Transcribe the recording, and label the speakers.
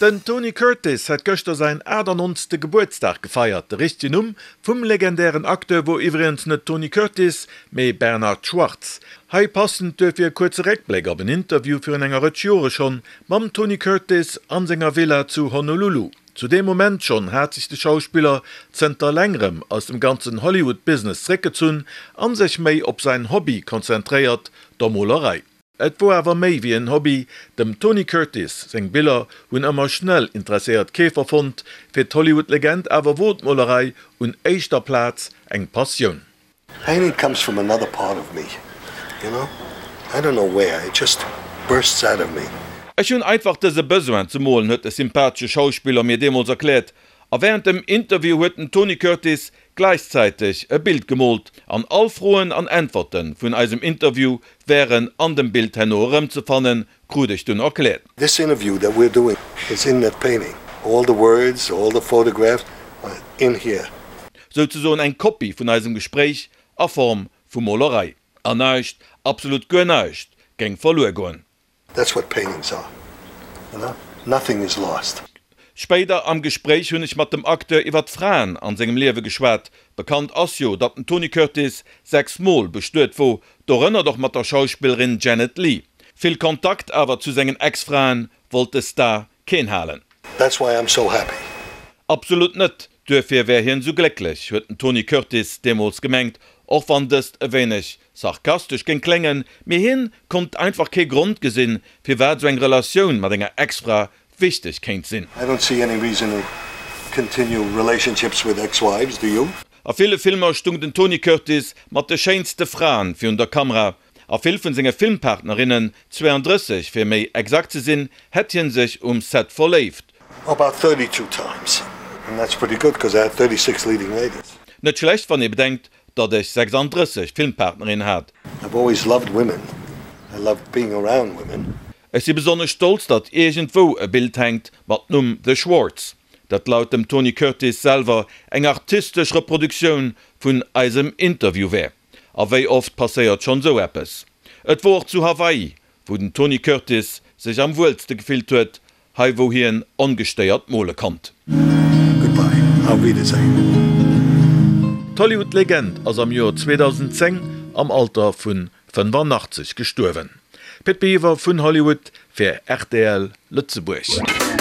Speaker 1: Den Tony Curtis hat gëschter säin 98. Gebuertsdag gefeiert. De richtegen Numm vum legendären Acteur wor iwwregens net Tony Curtis, mee Bernard Schwartz. Hei passend duerfir e kuerze Réckbléck op en Interview virun enger Rëtsch Jore schonn mam Tony Curtis an senger Villa zu Honolulu. Zu deem Moment schonn hat sech de Schauspiller zënter längerem aus dem ganzen Hollywood-Business zréckgezunn an sech méi op säin Hobby konzentréiert, der Molerei. Et wor awer méi wéi en Hobby, dem Tony Curtis seng Biller hunn ëmmer schnell interesséiert Keefer fonnt, fir d'Hollywood-Legend awer wor d'Molerei un éischter Plaz eng Passioun.
Speaker 2: Painting comes from another part of me, you know, I don't know where, it just bursts out of me.
Speaker 1: Ech hunn einfach dëse Besoin ze molen, huet de sympathesche Schauspiller mir deemools erkläert. A wärend dem Interview huet den Tony Curtis gläichzäiteg e Bild gemoolt an all Froen an Äntwerte vun eisem Interview wären an dem Bild herno erëmzefannen, krut ech dunn erkläert.
Speaker 2: This interview that we're doing is in that painting, all the words, all the photographs are in here.
Speaker 1: Souzesoen eng Kopie vun eisem Gespréich a Form vu Molerei. An näischt, absolut guer näischt géing verluer goen.
Speaker 2: That's what paintings are, you know, nothing is lost.
Speaker 1: Spéider am Gespréich hunn ech mat dem Acteur iwwer d'Fraen an sengem Liewe geschwat. Bekannt ass jo, datt den Tony Curtis 6 Mol bestuet wor, dorënner och mat der Schauspillerin Janet Leigh. Vill Kontakt awer zu sengen Ex-Fraen wollt de Star keen halen.
Speaker 2: That's why I'm so happy.
Speaker 1: Absolut net, duerfir wär hien sou glécklech, huet den Tony Curtis deemools gemengt, och wann dëst e wéineg sarkastesch géing kléngen, mee hien konnt einfach kee Grond gesinn, firwat sou eng Relatioun mat enger Ex-Fra wichteg kéint sinn.
Speaker 2: I don't see any reason to continue relationships with ex-wives, do you?
Speaker 1: A ville Filmer stung den Tony Curtis mat de schéinste Fraen virun der Kamera. A vill vun senge Filmpartnerinnen, 32 fir méi exakt ze sinn, hätt hien sech um Set verléift.
Speaker 2: About 32 times, and that's pretty good, cause I had 36 leading ladies.
Speaker 1: Net schlecht, wann ee bedenkt, datt ech 36 Filmpartnerinnen hat.
Speaker 2: I've always loved women, I loved being around women.
Speaker 1: Ech si besonnesch stolz, datt iergendwou e Bild hänkt mat Numm The Schwartz, dat laut dem Tony Curtis selwer eng artistesch Reproduktioun vun eisem Interview wär. A wéi oft passéiert schonn esou eppes? Et wor och zu Hawaii, wou den Tony Curtis sech am wuelste gefillt huet, hei wou hien ongestéiert mole konnt.
Speaker 2: Goodbye, auf Wiedersehen.
Speaker 1: D'Hollywood-Legend ass am Joer 2010 am Alter vu 85 gestuerwen. Pit Biwer vun Hollywood fir rtl Lëtzebuerg.